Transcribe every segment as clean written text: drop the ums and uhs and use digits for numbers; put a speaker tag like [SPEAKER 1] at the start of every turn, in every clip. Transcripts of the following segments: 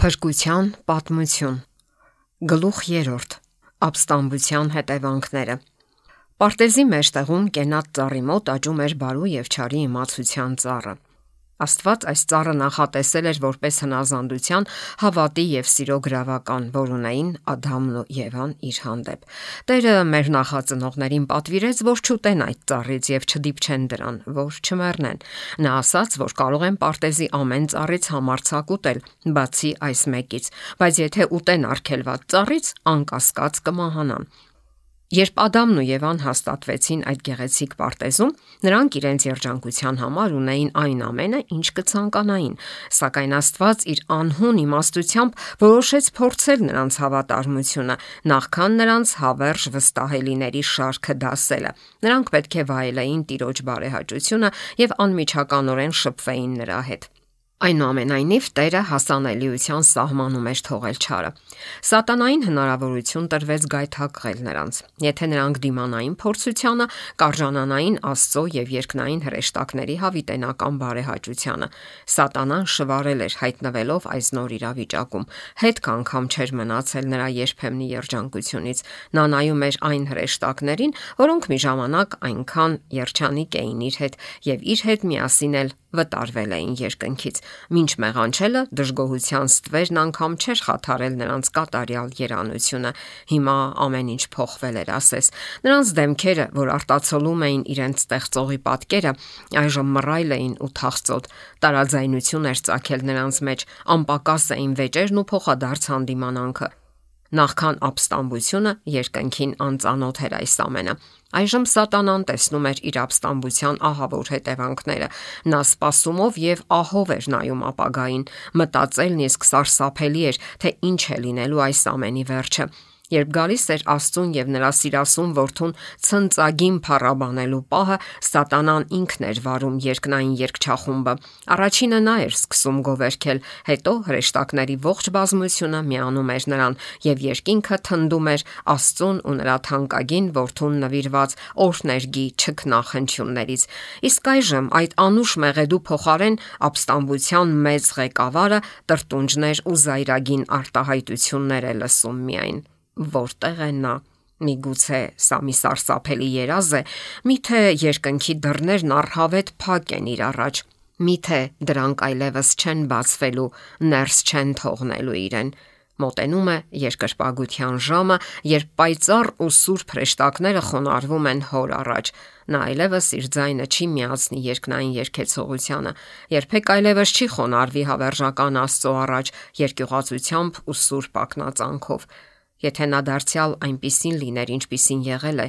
[SPEAKER 1] Փրկության պատմություն։ Գլուխ 3. Ապստամբության հետևանքները։ Պարտեզի մեջտեղում կենաց ծառի մոտ աճում էր բարու եւ չարի իմացության ծառը։ Աստված այս ծառը նախատեսել էր որպես հնազանդության, հավատի եւ սիրո գրավական, որ ունեին Ադամն ու Եվան իր հանդեպ։ Տերը մեր նախածնողներին պատվիրեց, որ չուտեն այդ ծառից եւ չդիպչեն դրան, որ չմեռնեն։ Նա ասաց, որ կարող են պարտեզի ամեն ծառից համարձակ ուտել, բացի այս մեկից, բայց եթե ուտեն արգելված ծառից, անկասկած կմահանան։ Երբ Ադամն ու Եվան հաստատվեցին այդ գեղեցիկ պարտեզում, նրանք իրենց երջանկության համար ունեին այն ամենը, ինչ կցանկանային, սակայն Աստված իր անհուն իմաստությամբ որոշեց փորձել նրանց հավատարմությունը, նախքան նրանց հավերժ վստահելիների շարքը դասելը։ Նրանք պետք է վայելեին Տիրոջ բարեհաճությունը եւ անմիջականորեն շփվեին նրա հետ։ Այնուամենայնիվ Տերը հասանելիության սահմանում էր թողել չարը։ Սատանային հնարավորություն տրվեց գայթակղել նրանց։ Եթե նրանք դիմանային փորձությանը, կարժանանային Աստծո եւ երկնային հրեշտակների հավիտենական բարեհաճությանը։ Սատանան շվարել էր հայտնվելով այս նոր իրավիճակում։ Հետք անգամ չէր մնացել նրա երբեմնի երջանկությունից։ Նա նայում էր այն հրեշտակներին, որոնք մի ժամանակ այնքան երջանիկ էին իր հետ եւ իր հետ միասին էլ վտարվել էին երկնքից։ Մինչ մեղանչելը դժգոհության ստվերն անգամ չէր խաթարել նրանց կատարյալ երանությունը։ Հիմա ամեն ինչ փոխվել էր, ասես։ Նրանց դեմքերը, որ արտացոլում էին իրենց ստեղծողի պատկերը, այժմ մռայլ էին ու թախծոտ։ Տարաձայնություն էր ծագել նրանց մեջ, անպակաս էին վեճերն ու փոխադարձ հանդիմանանքը։ Նախքան ապստամբությունը երկնքին անծանոթ էր այս ամենը։ Այժմ Սատանան տեսնում էր իր ապստամբության ահավոր հետևանքները։ Նա սպասումով եւ ահով էր նայում ապագային։ Մտածելն իսկ սարսափելի էր, թե ինչ է լինելու այս ամենի վերջը։ Երբ գալիս էր Աստծուն եւ նրա սիրասուն որդուն ցնծագին փառաբանելու պահը, Սատանան ինքն էր վարում երկնային երգչախումբը։ Առաջինը նա էր սկսում գովերքել, հետո հրեշտակների ողջ բազմությունը միանում էր նրան եւ երկինքը թնդում էր Աստծուն ու նրա թանկագին որդուն նվիրված օրհներգի չքնախնդյուններից։ Իսկ այժմ այդ անուշ մեղեդու փոխարեն ապստամբության մեծ ղեկավարը տրտունջներ ու զայրագին արտահայտություններ է լսում միայն։ Որտեղ է նա։ Միգուցե սա մի սարսափելի երազ է, միթե երկնքի դռներն առհավետ փակ են իր առաջ, միթե դրանք այլևս չեն բացվելու, ներս չեն թողնելու իրեն։ Մոտենում է երկրպագության ժամը, երբ պայծառ ու սուրբ հրեշտակները խոնարհվում են հոր առաջ։ Նա այլևս իր ձայնը չի միացնի երկնային երգեցողությանը, երբեք այլևս չի խոնարհվի հավերժական Աստծո առաջ երկյուղածությամբ ու սուրբ ակնածանքով։ Եթե նա դարձյալ այնպիսին լիներ, ինչպիսին եղել է,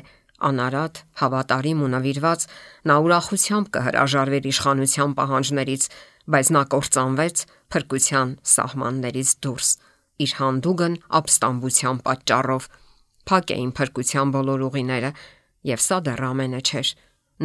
[SPEAKER 1] անարատ, հավատարիմ ու նվիրված, նա ուրախությամբ կհրաժարվեր իշխանության պահանջներից, բայց նա կործանվեց փրկության սահմաններից դուրս։ Իր հանդուգն ապստամբության պատճառով փակ էին փրկության բոլոր ուղիները, եւ սա դեռ ամենը չէր։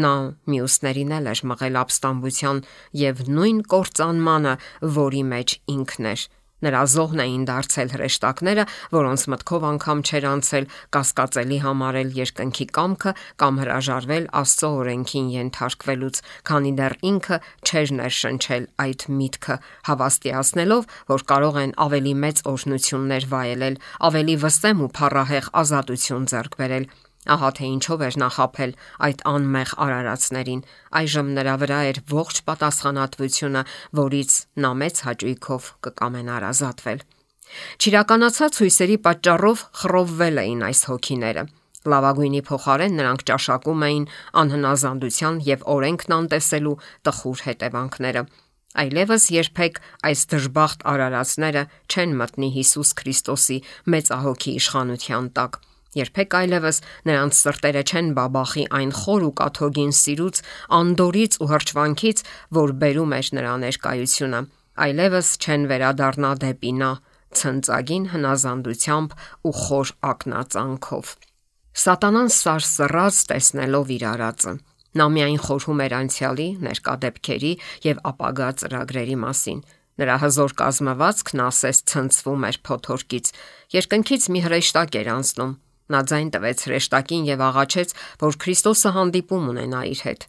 [SPEAKER 1] Նա մյուսներին էլ էր մղել ապստամբության եւ նույն կործանմանը, որի մեջ ինքն էր։ Նրա զոհն էին դարձել հրեշտակները, որոնց մտքով անգամ չէր անցել կասկածելի համարել երկնքի կամքը կամ հրաժարվել Աստծո օրենքին ենթարկվելուց, քանի դեռ ինքը չէր ներշնչել այդ միտքը, հավաստիացնելով, որ կարող են ավելի մեծ օրհնություններ վայելել, ավելի վսեմ ու փառահեղ ազատություն ձեռք բերել։ Ահա թե ինչով էր նա խաբել այդ անմեղ արարածներին։ Այժմ նրա վրա էր ողջ պատասխանատվությունը, որից նա մեծ հաճույքով կկամենար ազատվել։ Չիրականացած հույսերի պատճառով խռովվել էին այս հոգիները։ Լավագույնի փոխարեն նրանք ճաշակում էին անհնազանդության եւ օրենքն անտեսելու տխուր հետևանքները։ Այլևս երբեք այս դժբախտ արարածները չեն մտնի Հիսուս Քրիստոսի մեծահոգի իշխանության տակ։ Երբեք այլևս նրանց սրտերը չեն բաբախի այն խոր ու կաթողին սիրուց, անդորից ու հրճվանքից, որ բերում էր նրա ներկայությունը։ Այլևս չեն վերադառնա դեպի նա ցնծագին հնազանդությամբ ու խոր ակնածանքով։ Սատանան սարսռած տեսնելով իր արածը, նա միայն խորհում էր անցյալի, ներկա դեպքերի եւ ապագա ծրագրերի մասին։ Նրա հզոր կազմվածքն ասես ցնցվում էր փոթորկից։ Երկնքից մի հրեշտակ էր անցնում։ Նա ձայն տվեց հրեշտակին եւ աղաչեց, որ Քրիստոսը հանդիպում ունենա իր հետ։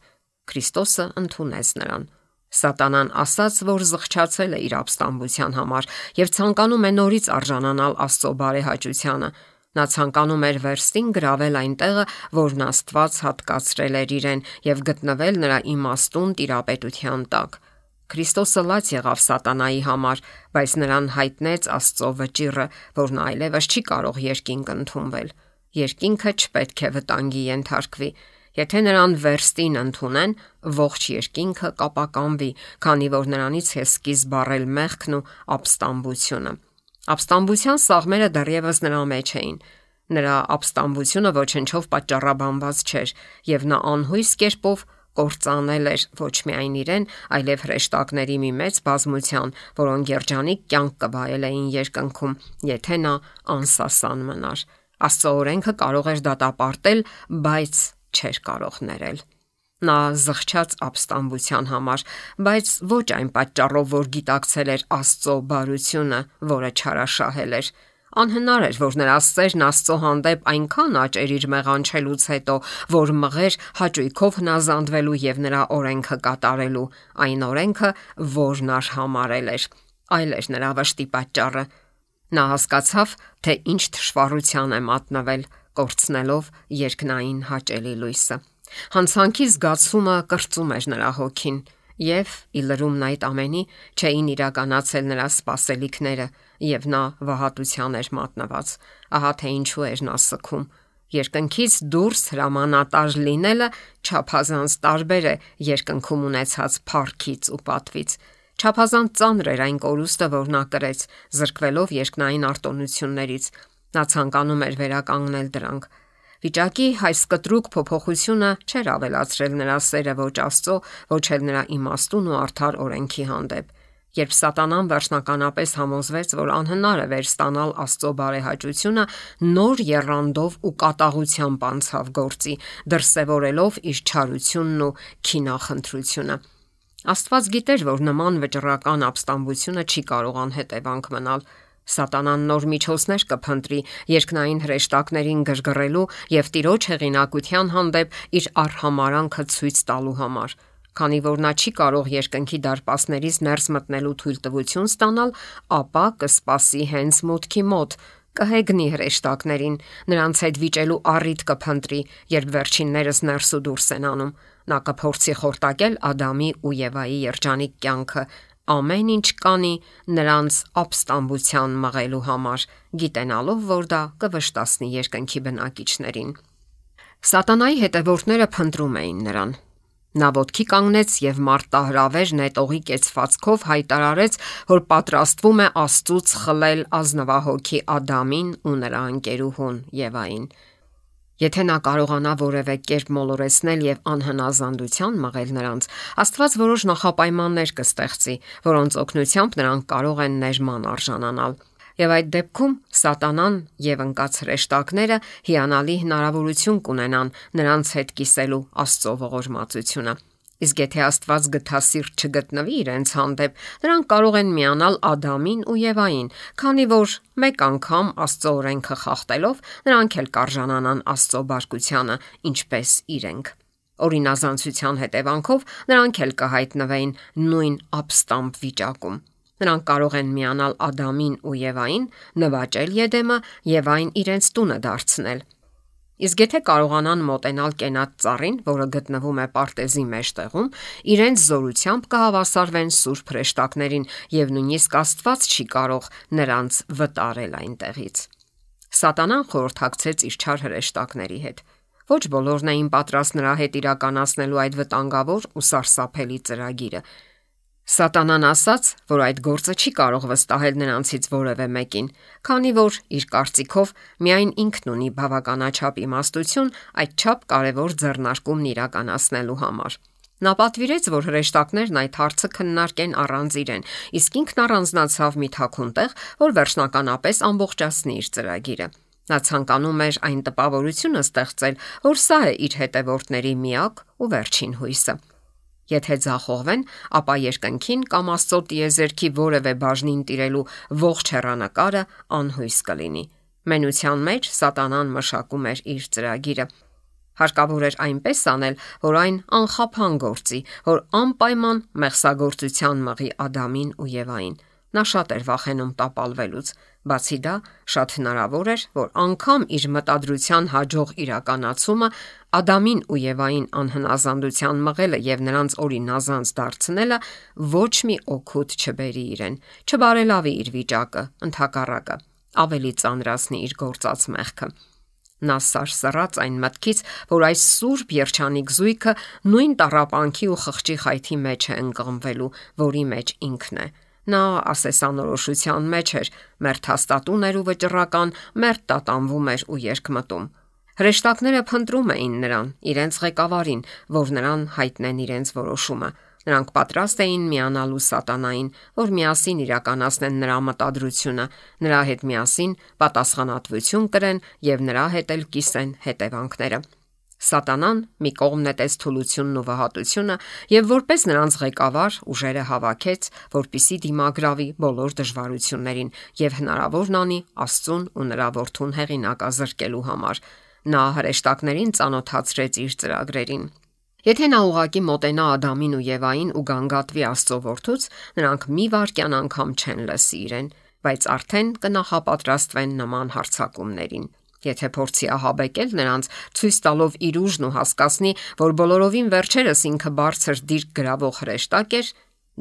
[SPEAKER 1] Քրիստոսը ընդունեց նրան։ Սատանան ասաց, որ զղջացել է իր ապստամբության համար եւ ցանկանում է նորից արժանանալ Աստծո բարեհաճությանը։ Նա ցանկանում էր վերստին գրավել այն տեղը, որն Աստված հատկացրել էր իրեն եւ գտնվել նրա իմաստուն տիրապետության տակ։ Քրիստոսը լաց եղավ սատանայի համար, բայց նրան հայտնեց Աստծո վճիռը, որն այլևս չի կարող երկինք ընդունվել։ Երկինքը չպետք է վտանգի ենթարկվի։ Եթե նրան վերստին ընդունեն, ողջ երկինքը կապականվի, քանի որ նրանից է սկիզբ առել մեղքն ու ապստամբությունը։ Ապստամբության սաղմերը դեռևս նրա մեջ էին։ Նրա ապստամբությունը ոչնչով պատճառաբանված չէր, եւ նա անհույս կերպով կործանել էր ոչ միայն իրեն, այլև հրեշտակների մի մեծ բազմության, որոնք երջանիկ կյանք կվայելեին երկնքում, եթե նա անսասան մնար։ Աստծո օրենքը կարող էր դատապարտել, բայց չէր կարող ներել։ Նա զղջաց ապստամբության համար, բայց ոչ այն պատճառով, որ գիտակցել էր Աստծո բարությունը, որը չարաշահել էր։ Անհնար էր, որ նրա սերն Աստծո հանդեպ այնքան աճեր իր մեղանչելուց հետո, որ մղեր հաճույքով հնազանդվելու եւ նրա օրենքը կատարելու, այն օրենքը, որն արհամարել էր։ Այլ էր նրա վշտի պատճառը։ Նա հասկացավ, թե ինչ թշվառության է մատնվել, կորցնելով երկնային հաճելի լույսը։ Հանցանքի զգացումը կրծում էր նրա հոգին, եւ ի լրումն այդ ամենի չէին իրականացել նրա սպասելիքները, եւ նա վհատության էր մատնված։ Ահա թե ինչու էր նա սգում։ Երկնքից դուրս հրամանատար լինելը չափազանց տարբեր է երկնքում ունեցած փառքից ու պատվից։ Չափազանց ծանր էր այն կորուստը, որ նա կրեց, զրկվելով երկնային արտոնություններից։ Նա ցանկանում էր վերականգնել դրանք։ Վիճակի այս կտրուկ փոփոխությունը չէր ավելացրել նրա սերը ոչ Աստծո, ոչ էլ նրա իմաստուն ու արդար օրենքի հանդեպ։ Երբ սատանան վերջնականապես համոզվեց, որ անհնար է վերստանալ Աստծո բարեհաճությունը, նոր եռանդով ու կատաղությամբ անցավ գործի, դրսևորելով իր չարությունն ու քինախնդրությունը։ Աստված գիտեր, որ նման վճռական ապստամբությունը չի կարող անհետևանք մնալ։ Սատանան նոր միջոցներ կփնտրի երկնային հրեշտակներին գրգռելու եւ Տիրոջ հեղինակության հանդեպ իր արհամարանքը ցույց տալու համար։ Քանի որ նա չի կարող երկնքի դարպասներից ներս մտնելու թույլտվություն ստանալ, ապա կսպասի հենց մուտքի մոտ, կհեգնի հրեշտակներին, նրանց հետ վիճելու առիթ կփնտրի, երբ վերջիններս ներս ու դուրս են անում։ Նա կփորձի խորտակել Ադամի ու Եվայի երջանիկ կյանքը, ամեն ինչ կանի նրանց ապստամբության մղելու համար, գիտենալով, որ դա կվշտացնի երկնքի բնակիչներին։ Սատանայի հետևորդները փնտրում էին նրան։ Նա ոտքի կանգնեց եւ մարտահրավեր նետողի կեցվածքով հայտարարեց, որ պատրաստվում է Աստծուց խլել ազնվահոգի Ադամին ու նրա ընկերուհուն Եվային։ Եթե նա կարողանա որևէ կերպ մոլորեցնել եւ անհնազանդության մղել նրանց, Աստված որոշ նախապայմաններ կստեղծի, որոնց օգնությամբ նրանք կարող են ներման արժանանալ։ Եվ այդ դեպքում սատանան եւ ընկած հրեշտակները հիանալի հնարավորություն կունենան նրանց հետ կիսելու Աստծո ողորմածությունը։ Իսկ եթե Աստված գթասիրտ չգտնվի իրենց հանդեպ, նրանք կարող են միանալ Ադամին ու Եվային, քանի որ մեկ անգամ Աստծո օրենքը խախտելով նրանք էլ կարժանանան Աստծո բարկությանը, ինչպես իրենք։ Օրինազանցության հետևանքով նրանք էլ կհայտնվեին նույն ապստամբ վիճակում։ Նրանք կարող են միանալ Ադամին ու Եվային, նվաճել Եդեմը եւ այն իրենց տունը դարձնել։ Իսկ եթե կարողանան մոտենալ կենատ ծառին, որը գտնվում է պարտեզի մեջտեղում, իրենց զորությամբ կհավասարվեն սուրբ հրեշտակներին եւ նույնիսկ Աստված չի կարող նրանց վտարել այնտեղից։ Սատանան խորհրդակցեց իր չար հրեշտակների հետ։ Ոչ բոլորն էին պատրաստ նրա հետ իրականացնելու այդ վտանգավոր ու սարսափելի ծրագիրը։ Սատանան ասաց, որ այդ գործը չի կարող վստահել նրանցից որևէ մեկին, քանի որ իր կարծիքով միայն ինքն ունի բավականաչափ իմաստություն այդչափ կարևոր ձեռնարկումն իրականացնելու համար։ Նա պատվիրեց, որ հրեշտակներն այդ հարցը քննարկեն առանց իրեն, իսկ ինքն առանձնացավ մի թաքուն տեղ, որ վերջնականապես ամբողջացնի իր ծրագիրը։ Նա ցանկանում էր այն տպավորությունը ստեղծել, որ սա է իր հետևորդների միակ ու վերջին հույսը։ Եթե ձախողվեն, ապա երկնքին կամ Աստծո տիեզերքի որևէ բաժնին տիրելու ողջ հեռանկարը անհույս կլինի։ Մենության մեջ սատանան մշակում էր իր ծրագիրը։ Հարկավոր էր այնպես անել, որ այն անխափան գործի, որ անպայման մեղսագործության մղի Ադամին ու Եվային։ Նա շատ էր վախենում տապալվելուց։ Բացի դա, շատ հնարավոր էր, որ անգամ իր մտադրության հաջող իրականացումը Ադամին ու Եվային անհնազանդության մղելը եւ նրանց օրինազանց դարձնելը ոչ մի օգուտ չբերի իրեն, չբարելավի իր վիճակը, ընդհակառակը, ավելի ծանրացնի իր գործած մեղքը։ Նա սարսռաց այն մտքից, որ այս սուրբ երջանիկ զույգը նույն տառապանքի ու խղճի խայթի մեջ է ընկղմվելու, որի մեջ ինքն է։ Նա ասեսանորոշության մեջ էր, մերթ հաստատուն էր ու վճռական, մերթ տատանվում էր ու երկմտում։ Հրեշտակները փնտրում էին նրան, իրենց ղեկավարին, որ նրան հայտնեն իրենց որոշումը։ Նրանք պատրաստ էին միանալու սատանային, որ միասին իրականացնեն նրա մտադրությունը, նրա հետ միասին պատասխանատվություն կրեն եւ նրա հետ էլ կիսեն հետևանքները։ Սատանան մի կողմ նետեց թուլությունն ու վհատությունը եւ որպես նրանց ղեկավար ուժերը հավաքեց, որպիսի դիմագրավի բոլոր դժվարություններին եւ հնարավորն անի Աստծուն ու նրա որդուն հեղինակազրկելու համար։ Նա հրեշտակներին ծանոթացրեց իր ծրագրերին։ Եթե նա ուղակի մոտենա Ադամին ու Եվային ու գանգատվի Աստծո որդուց, նրանք մի վայրկյան անգամ չեն լսի իրեն, բայց արդեն կնախապատրաստվեն նման հարձակումներին։ Եթե փորձի ահաբեկել նրանց, ցույց տալով իր ուժն ու հասկացնի, որ բոլորովին վերջերս ինքը բարձր դիրք գրավող հրեշտակ էր,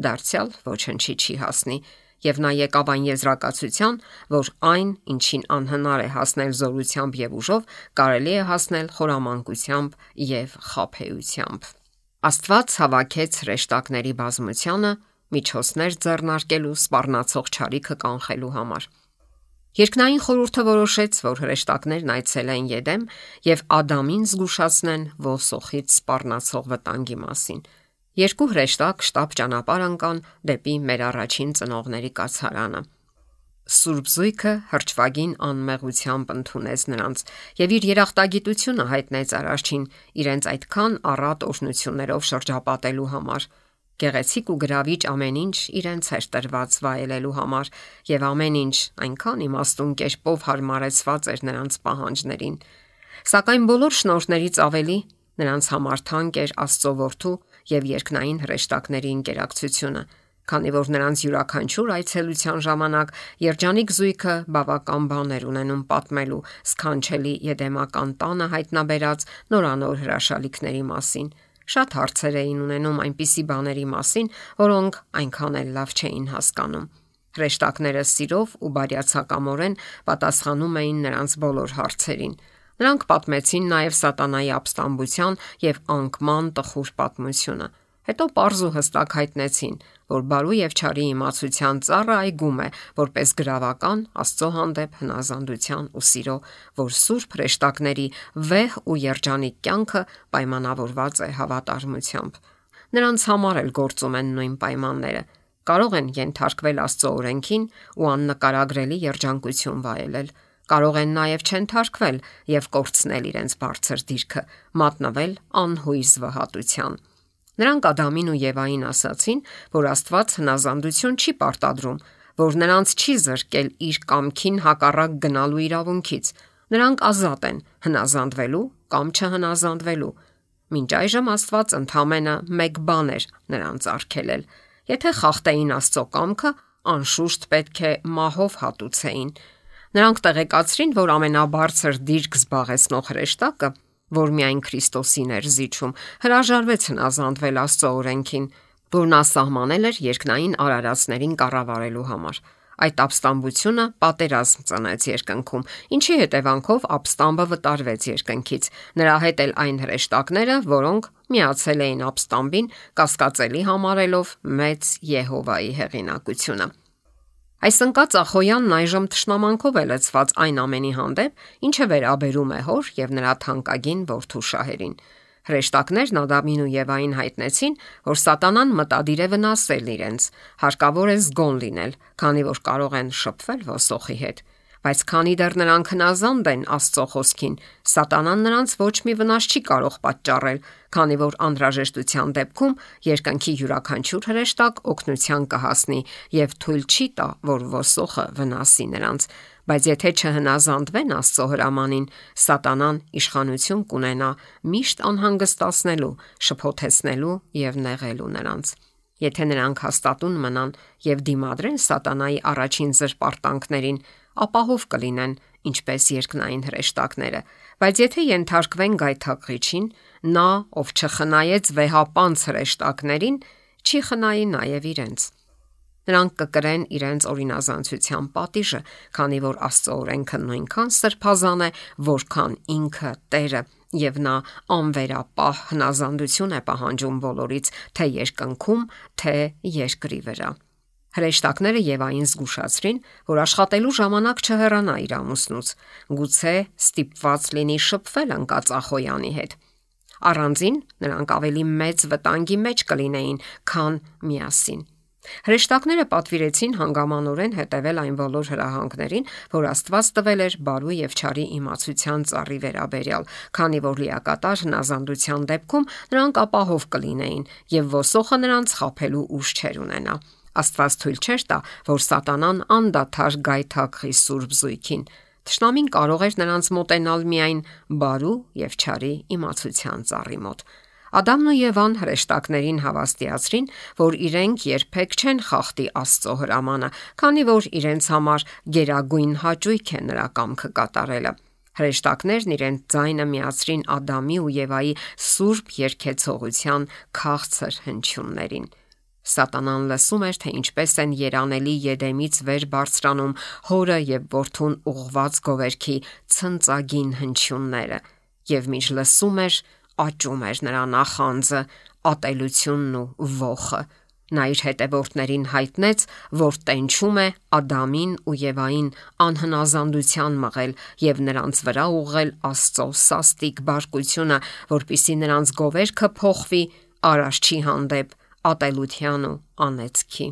[SPEAKER 1] դարձյալ ոչնչի չի հասնի, եւ նա եկավ այն եզրակացության, որ այն, ինչին անհնար է հասնել զորությամբ եւ ուժով, կարելի է հասնել խորամանկությամբ եւ խաբեությամբ։ Աստված հավաքեց հրեշտակների բազմությանը միջոցներ ձեռնարկելու սպառնացող չարիքը կանխելու համար։ Երկնային խորհուրդը որոշեց, որ հրեշտակներն այցելեն Եդեմ եւ Ադամին զգուշացնեն ոսոխից սպառնացող վտանգի մասին։ Երկու հրեշտակ շտապ ճանապարհ ընկան դեպի մեր առաջին ծնողների կացարանը։ Սուրբ զույգը հրճվագին անմեղությամբ ընդունեց նրանց եւ իր երախտագիտությունը հայտնեց Արարչին իրենց այդքան առատ օրհնություններով շրջապատելու համար։ Գեղեցիկ ու գրավիչ ամեն ինչ իրենց էր տրված վայելելու համար եւ ամեն ինչ այնքան իմաստուն կերպով հարմարեցված էր նրանց պահանջներին։ Սակայն բոլոր շնորհներից ավելի նրանց համար թանկ էր Աստծո որդու եւ երկնային հրեշտակների ինտերակցիոնը, քանի որ նրանց յուրաքանչյուր այցելության ժամանակ երջանիկ զույգը բավական բաներ ունենում պատմելու սքանչելի եդեմական տանը հայտնաբերած նորանոր հրաշալիքների մասին։ Շատ հարցեր էին ունենում այնպիսի բաների մասին, որոնք այնքան էլ լավ չէին հասկանում։ Հրեշտակները սիրով ու բարյացակամորեն պատասխանում էին նրանց բոլոր հարցերին։ Նրանք պատմեցին նաև սատանայի ապստամբության եւ անկման տխուր պատմությունը։ Հետո պարզ ու հստակ հայտնեցին, որ բարու եւ չարի իմացության ծառը այգում է, որպես գրավական Աստծո հանդեպ հնազանդության ու սիրո, որ սուրբ հրեշտակների վեհ ու երջանիկ կյանքը պայմանավորված է հավատարմությամբ։ Նրանց համար էլ գործում են նույն պայմանները։ Կարող են ենթարկվել Աստծո օրենքին ու աննկարագրելի երջանկություն վայելել։ Կարող են նաև չենթարկվել եւ կորցնել իրենց բարձր դիրքը, մատնվել անհույս վհատության։ Նրանք Ադամին ու Եվային ասացին, որ Աստված հնազանդություն չի պարտադրում, որ նրանց չի զրկել իր կամքին հակառակ գնալու իրավունքից։ Նրանք ազատ են հնազանդվելու կամ չհնազանդվելու։ Մինչ այժմ Աստված ընդամենը մեկ բան էր նրանց արգելել։ Եթե խախտեին Աստծո կամքը, անշուշտ պետք է մահով հատուցեին։ Նրանք տեղեկացրին, որ ամենաբարձր դիրք զբաղեցնող հրեշտակը, որ միայն Քրիստոսին էր զիջում, հրաժարվեց հնազանդվել Աստծո օրենքին, որն ասահմանել էր երկնային արարածներին կառավարելու համար։ Այդ ապստամբությունը պատերազմ ծնեց երկնքում, ինչի հետևանքով ապստամբը վտարվեց երկնքից։ Նրա հետ էլ այն հրեշտակները, որոնք միացել էին ապստամբին, կասկածելի համարելով մեծ Եհովայի հեղինակությունը։ Այս ընկած Ախոյանն այժմ թշնամանքով է լցված այն ամենի հանդեպ, ինչը վերաբերում է հոր եւ նրա թանկագին որդու շահերին։ Հրեշտակներն Ադամին ու Եվային հայտնեցին, որ սատանան մտադիր է վնասել իրենց, հարկավոր է զգոն լինել, քանի որ կարող են շփվել ոսոխի հետ։ Բայց քանի դեռ նրանք հնազանդ են Աստծո խոսքին, Սատանան նրանց ոչ մի վնաս չի կարող պատճառել, քանի որ անհրաժեշտության դեպքում երկնքի յուրաքանչյուր հրեշտակ օգնության կհասնի եւ թույլ չի տա, որ ոսոխը վնասի նրանց։ Բայց եթե չհնազանդվեն Աստծո հրամանին, Սատանան իշխանություն կունենա միշտ անհանգստացնելու, շփոթեցնելու եւ նեղելու նրանց։ Եթե նրանք հաստատուն մնան եւ դիմադրեն Սատանայի առաջին զրպարտանքներին, ապահով կլինեն, ինչպես երկնային հրեշտակները, բայց եթե ենթարկվեն գայթակղիչին, նա, ով չխնայեց վեհապանց հրեշտակներին, չի խնայի նաև իրենց։ Նրանք կկրեն իրենց օրինազանցության պատիժը, քանի որ Աստծո օրենքը նույնքան սրբազան է, որքան ինքը Տերը, եւ նա անվերապահ հնազանդություն է պահանջում բոլորից, թե երկնքում, թե երկրի վրա։ Հրեշտակները Եվային զգուշացրին, որ աշխատելու ժամանակ չհեռանա իր ամուսնուց, գուցե ստիպված լինի շփվել ընկածախոյանի հետ։ Առանձին նրանք ավելի մեծ վտանգի մեջ կլինեին, քան միասին։ Հրեշտակները պատվիրեցին հանգամանորեն հետևել այն բոլոր հրահանգներին, որ Աստված տվել էր բարու եւ չարի իմացության ծառի վերաբերյալ, քանի որ լիակատար հնազանդության դեպքում նրանք ապահով կլինեին եւ ոսոխը նրանց խաբելու ուժ չեր ունենա։ Աստված թույլ չէր տա, որ Սատանան անդադար գայթակղի սուրբ զույգին։ Թշնամին կարող էր նրանց մոտենալ միայն բարու եւ չարի իմացության ծառի մոտ։ Ադամն ու Եվան հրեշտակներին հավաստիացրին, որ իրենք երբեք չեն խախտի Աստծո հրամանը, քանի որ իրենց համար գերագույն հաճույք է նրա կամքը կատարելը։ Հրեշտակներն իրենց ձայնը միացրին Ադամի ու Եվայի սուրբ երգեցողության քաղցր հնչյուններին։ Սատանան լսում էր, թե ինչպես են երանելի Եդեմից վեր բարձրանում հորը եւ որդուն ուղված գովերքի ցնծագին հնչյունները, եւ մինչ լսում էր, աճում էր նրա նախանձը, ատելությունն ու ոխը։ Նա իր հետևորդներին հայտնեց, որ տենչում է Ադամին ու Եվային անհնազանդության մղել եւ նրանց վրա ուղղել Աստծո սաստիկ բարկությունը, որպիսի նրանց գովերքը փոխվի Արարչի հանդեպ ատելության ու անեծքի։